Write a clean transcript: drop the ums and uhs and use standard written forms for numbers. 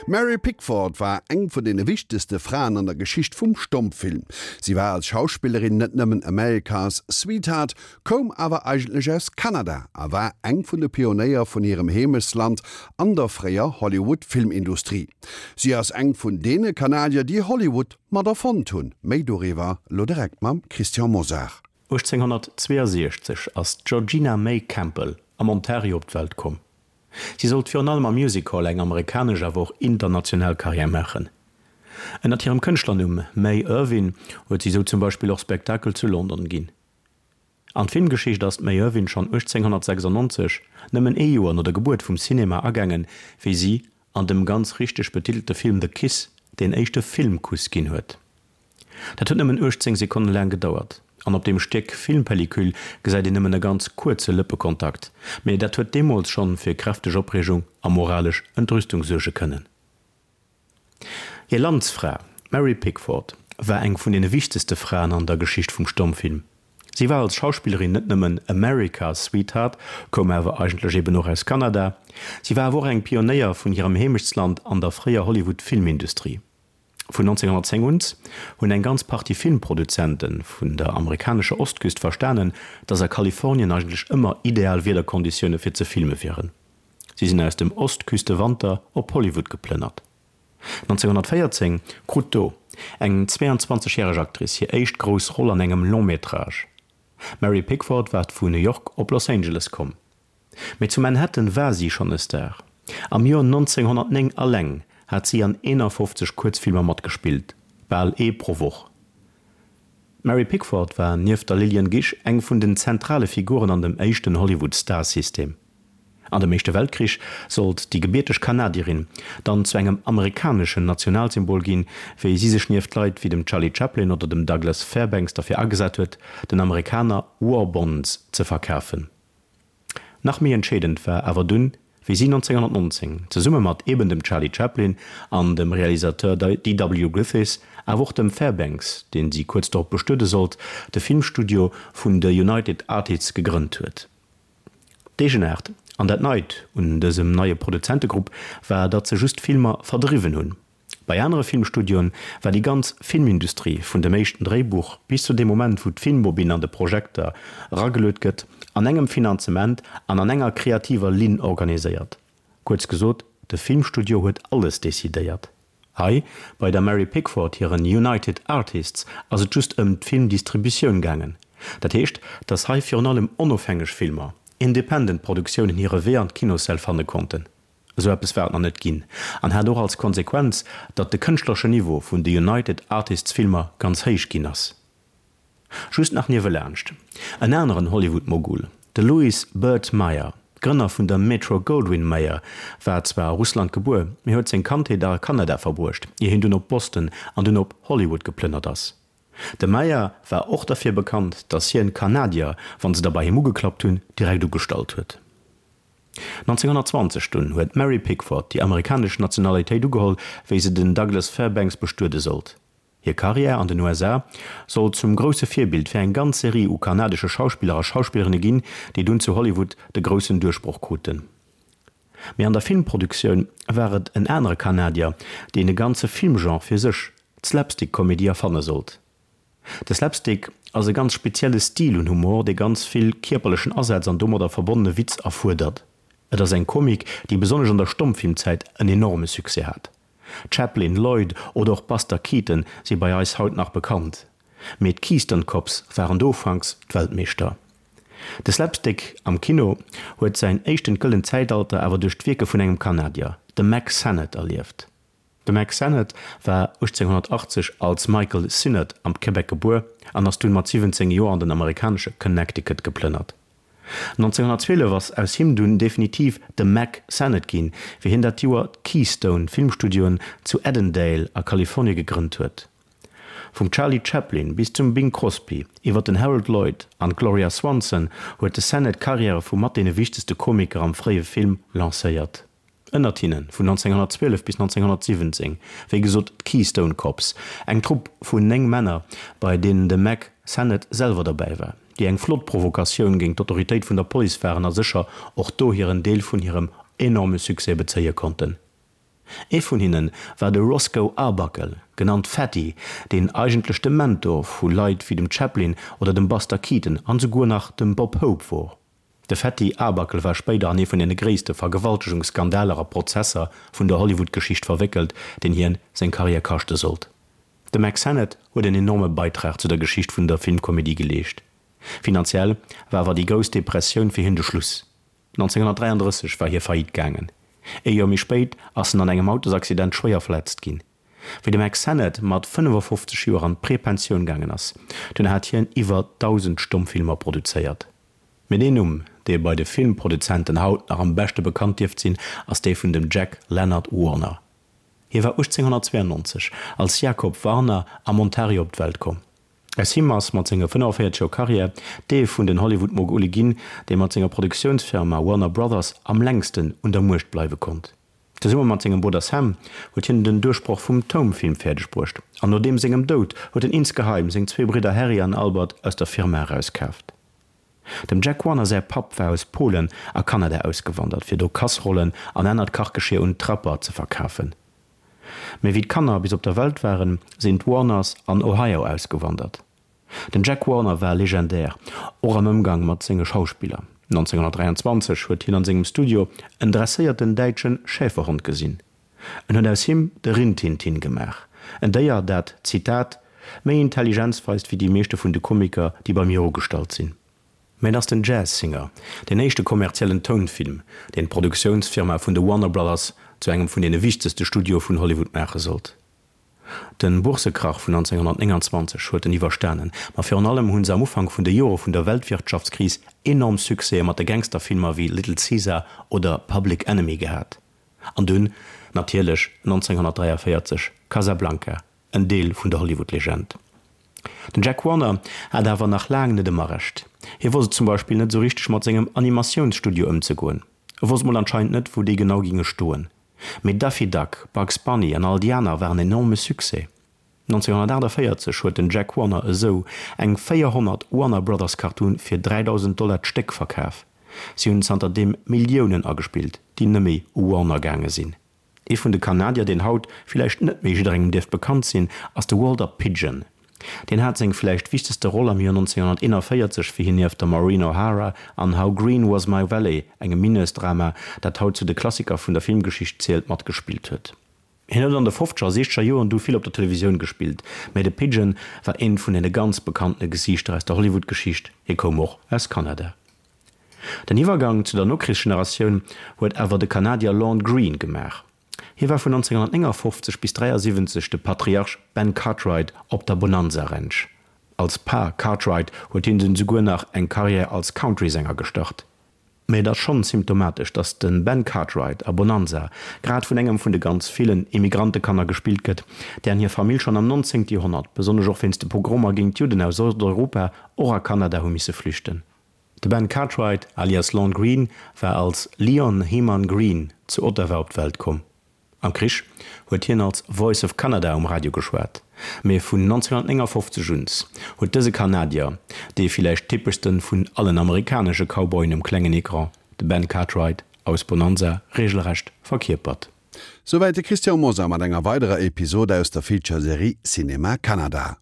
D'Mary Pickford war eng vun deene wichtegste Fraen an der Geschicht vum Stommfilm. Si war als Schauspillerin net nëmmen America's Sweetheart, koum awer eigentlech aus Kanada a war eng vun de Pionéier vun hirem Heemechtsland an der fréier Hollywood-Filmindustrie. Si ass eng vun deene Kanadier, déi Hollywood mat erfonnt hunn. Méi doriwwer elo direkt mam Christian Mosar. 1862 ass d'Georgina May Campbell am Ontario op d'Welt komm. Si sollt virun allem am Music Hall eng amerikanesch awer och international Karriär maachen. Ënnert hirem Kënschtlernumm May Irvine huet si sou zum Beispill och Spektakel zu London ginn. An d'Filmgeschicht ass d'May Irvine schonn 1896, nëmmen ee Joer no der Gebuert vum Cinema, agaangen, wéi si an dem ganz richteg betitelte Film The Kiss deen éischte Filmkuss ginn huet. Dat huet nëmmen 18 Sekonne laang gedauert, an op deem Stéck Filmpellicule gesäit een nëmmen e ganz kuerze Lëppekontakt, mee dat huet deemools schonn fir kräfteg Opreegung a moralesch Entrüstung suerge kënnen. Hir Landsfra, d'Mary Pickford, war eng vun deene wichtegste Fraen an der Geschicht vum Stommfilm. Si war als Schauspillerin net nëmmen America's Sweetheart, koum awer eigentlech eben och aus Kanada, si war awer och eng Pionéier vun hirem Heemechtsland an der fréier Hollywood-Filmindustrie. Vun 1910 un hunn eng ganz Partie Filmproduzente vun der amerikanescher Ostküst verstanen, datt a Kalifornien eigentlech ëmmer ideal Wiederkonditioune fir ze filme wieren. Si sinn aus dem Ostküstewanter op Hollywood geplënnert. 1914 krut do eng 22 järeg Actrice hir éischt grouss Roll an engem Long-métrage. D'Mary Pickford war vu New York op Los Angeles komm. Mee zu Manhattan war si schonn e Star. Am Joer 1909 alleng hat si an 51 Kuerzfilmer matgespillt, bal ee pro Woch. D'Mary Pickford war nieft der Lillian Gish eng vun den zentrale Figuren an dem éischten Hollywood-Star-System. An dem Éischte Weltkrich sollt déi gebierteg Kanadierin dann zu engem amerikaneschen Nationalsymbol ginn, wéi si sech nieft Leit wéi dem Charlie Chaplin oder dem Douglas Fairbanks derfir agesat huet, den Amerikaner War Bonds ze verkafen. Nach méi entscheedend war awer dunn, wéi si 1919, zesumme mat eben dem Charlie Chaplin an dem Realisateur DW. Griffith, awer och dem Fairbanks, deen si kuerz dorop bestuede sollt, de Filmstudio vun de United Artists gegrënnt huet. D'Eegenaart an dat Neit un dësem neie Produzentegrupp war, datt se just Filmer verdriwwen hunn. Bei anere Filmstudioen war déi ganz Filmindustrie vun dem éischten Dréibuch bis zu deem Moment wou d'Filmbobinn an de Projekter erageluet gëtt, an engem Finanzement an an enger kreativer Linn organiséiert. Kuerz gesot, de Filmstudio huet alles decidéiert. Hei bei der Mary Pickford hiren United Artists ass et just ëm d'Filmdistributioun gaangen. Dat heescht, datt hei virun allem onofhängeg Filmer, independent Produktiounen hire Wee an d'Kinossäll fanne konnten. Esou eppes war et nach net ginn an hat och als Konsequenz, datt de kënschtlereschen Niveau vun de United Artists Filmer ganz héich ginn ass. Just nach niewelaanscht, en aneren Hollywood-Mogul, de Louis Burt Mayer, Grënner vun der Metro-Goldwyn-Mayer, war zwar a Russland gebuer, mee huet seng Kandheet a Kanada verbruecht, ier hien dunn op Boston an dunn op Hollywood geplënnert ass. De Mayer war och derfir bekannt, datt hien d'Kanadier, wann se da bei him ugeklappt hunn, direkt ugestallt huet. 1920 dunn huet d'Mary Pickford déi amerikanesch Nationalitéit ugeholl, wéi se den Douglas Fairbanks bestuede sollt. Hir Karriär an den USA sollt zum grousse Virbild fir eng ganz Serie u kanadesche Schauspiller a Schauspillerinne ginn, déi dunn zu Hollywood de groussen Duerchbroch kruten. Mee an der Filmproduktioun war et en anere Kanadier, deen e ganze Filmgenre fir sech, d'Slapstick-Komedie, erfanne sollt. De Slapstick ass e ganz spezielle Stil un Humor, dee ganz vill kierperlechen Asaz an domadder verbonnene Witz erfuerdert. Et ass eng Komik, déi besonnesch an der Stommfilmzäit en enorme Succès hat. Chaplin, Lloyd oder och Buster Keaton si bei eis haut nach bekannt, mee d'Keystone Cops waren do ufanks d'Weltmeeschter. De Slapstick am Kino huet säin éischten gëllent Zäitalter awer duerch d'Wierke vun engem Kanadier, dem Mack Sennett, erlieft. De Mack Sennett war 1880 als Michael Sinnott am Québec gebuer an ass dunn mat 17 Joer an den amerikanesche Connecticut geplënnert. 1912 ass aus him dunn definitiv de Mack Sennett ginn, wéi hien dat Joer d'Keystone Filmstudioen zu Edendale a Kalifornie gegrënnt huet. Vum Charlie Chaplin bis zum Bing Crosby, iwwer den Harold Lloyd an d'Gloria Swanson huet de Sennett d'Karriäre vu mat deene wichtegste Komiker am fréie Film lancéiert. Ënnert hinne vun 1912 bis 1917, wéi gesot d'Keystone Cops, eng Trupp vun 9 Männer, bei deenen de Mack Sennett selwer derbäi war, déi eng flott Provokatioun géint d'Autoritéit vun der Police waren a sécher och do hiren Deel vun hirem enorme Succès bezéie konnten. Ee vun hinne war de Roscoe Arbuckle, genannt Fatty, deen eigentlech de Mentor vu Leit wéi dem Chaplin oder dem Buster Keaton an esouguer nach dem Bob Hope wor. De Fatty Arbuckle war spéider an ee vun deene gréisste Vergewaltegungsskandaler a Prozesser vun der Hollywood-Geschicht verwéckelt, deen hien seng Karriär kaschte sollt. De Mack Sennett huet en enorme Beitrag zu der Geschicht vun der Filmkomedie geleescht. Finanziell war awer déi grouss Depressioun fir hien de Schluss. 1933 war hie faillite gaangen. Ee Joer méi spéit ass en an engem Autosaccident schwéier verletzt ginn. Wéi de Mack Sennett mat 55 Joer an d'Prepensioun gaangen ass, dunn hat hien iwwer 1.000 Stommfilmer produzéiert. Mee deen Numm, dee bei de Filmproduzenten haut nach am beschte bekannt dierft sinn, ass dee vun dem Jack Leonard Warner. Hie war 1892 als Jacob Warner am Ontario op d'Welt komm. Aus him ass mat senge 45 Joer Karriär dee vun den Hollywood-Mogule ginn, dee mat senger Produktiounsfirma Warner Brothers am längsten un der Muecht bleiwe konnt. Zesumme mat sengem Brudder Sam huet hien den Duerchbroch vum Toumfilm fäerdeg bruecht an no deem sengem Doud huet en insgeheim seng zwee Bridder Harry an Albert aus der Firma erauskaaft. Dem Jack Warner säi Papp war aus Polen a Kanada ausgewandert, fir do Kasserollen an anert Kachgeschier un d'Trapper ze verkafen. Mee wéi d'Kanner bis op der Welt waren, sinn d'Warners an Ohio ausgewandert. Den Jack Warner war legendär, och am Ëmgang mat senge Schauspiller. 1923 huet hien an sengem Studio en dresséierten däitsche Schäferhond gesinn. En huet aus him de Rintintin gemaach, en Déier, dat, Zitat, méi Intelligenz weist wéi déi meeschte vun de Komiker, déi bei mir ugestallt sinn. Mä et ass den Jazz Singer, deen éischte kommerziellen Tounfilm, deen d'Produktiounsfirma vun de Warner Brothers zu engem vun deene wichtegste Studioe vun Hollywood maache sollt. De Boursekrach vun 1929 huet en iwwerstanen, ma virun allem hu se am Ufank vun de Jore vun der Weltwirtschaftskris enorm Succèse mat de Gangsterfilmer wéi Little Caesar oder Public Enemy gehat. An dunn natierlech 1943 Casablanca, en Deel vun der Hollywood-Legend. Den Jack Warner hat awer nach laang net ëmmer Recht. Hie wosst et zum Beispill net esou richteg mat sengem Animatiounsstudio ëmzegoen. E wosst mol anscheinend net wou déi genau ginge stoen. Mee Daffy Duck, Bugs Bunny an all déi aner waren enorme Succès. 1948 huet den Jack Warner esou eng 400 Warner Brothers Cartoon fir 3.000 Dollar d'Stéck verkaf. Si hunn zanter deem Milliounen agespillt, déi nëmme u Warner gaange sinn. Ee vun de Kanadier, deen haut villäicht net méi jidderengem dierft bekannt sinn, ass de Walter Pidgeon. Deen hat seng villäicht wichtegste Roll am Joer 1941, wéi hien nieft der Maureen O'Hara an How Green Was My Valley, engem Mineursdrama, dat haut zu de Klassiker vun der Filmgeschicht zielt, matgespillt huet. Hien huet an de fofzeger a siechzeger Joren du vill op der Televisioun gespillt, mä de Pidgeon war eent vun deene ganz bekanntene Gesiichter aus der Hollywood-Geschicht. Hie koum och aus Kanada. Den Iwwergang zu der Nokrichsgeneratioun huet awer de Kanadier Lorne Greene gemaach. Hie war vun 1959 bis 73 de Patriarch Ben Cartwright op der Bonanza Ranch. Als Pa Cartwright huet hien dunn souguer nach eng Karriär als Country-Sänger gestart. Mee et ass schonn symptomatesch, datt de Ben Cartwright a Bonanza grad vun engem vun de ganz villen Immigrantekanner gespillt gëtt, dären hir Famill schonn am 19. Joerhonnert, besonnesch och wéinst de Pogromer géint d'Judden aus Osteuropa, och a Kanada hu misse flüchten. De Ben Cartwright alias Lorne Greene war als Leon Hyman Green zu Ottawa op d'Welt komm. Am Krich huet hien als Voice of Canada um Radio geschwat, mee vun 1959 un huet dëse Kanadier, dee villäicht typeschste vun allen amerikanesche Cowboyen um klengen Ecran, de Ben Cartwright aus Bonanza regelrecht verkierpert. Souwäit de Christian Mosar mat enger weiderer Episode aus der Feature-Serie Cinéma Canada.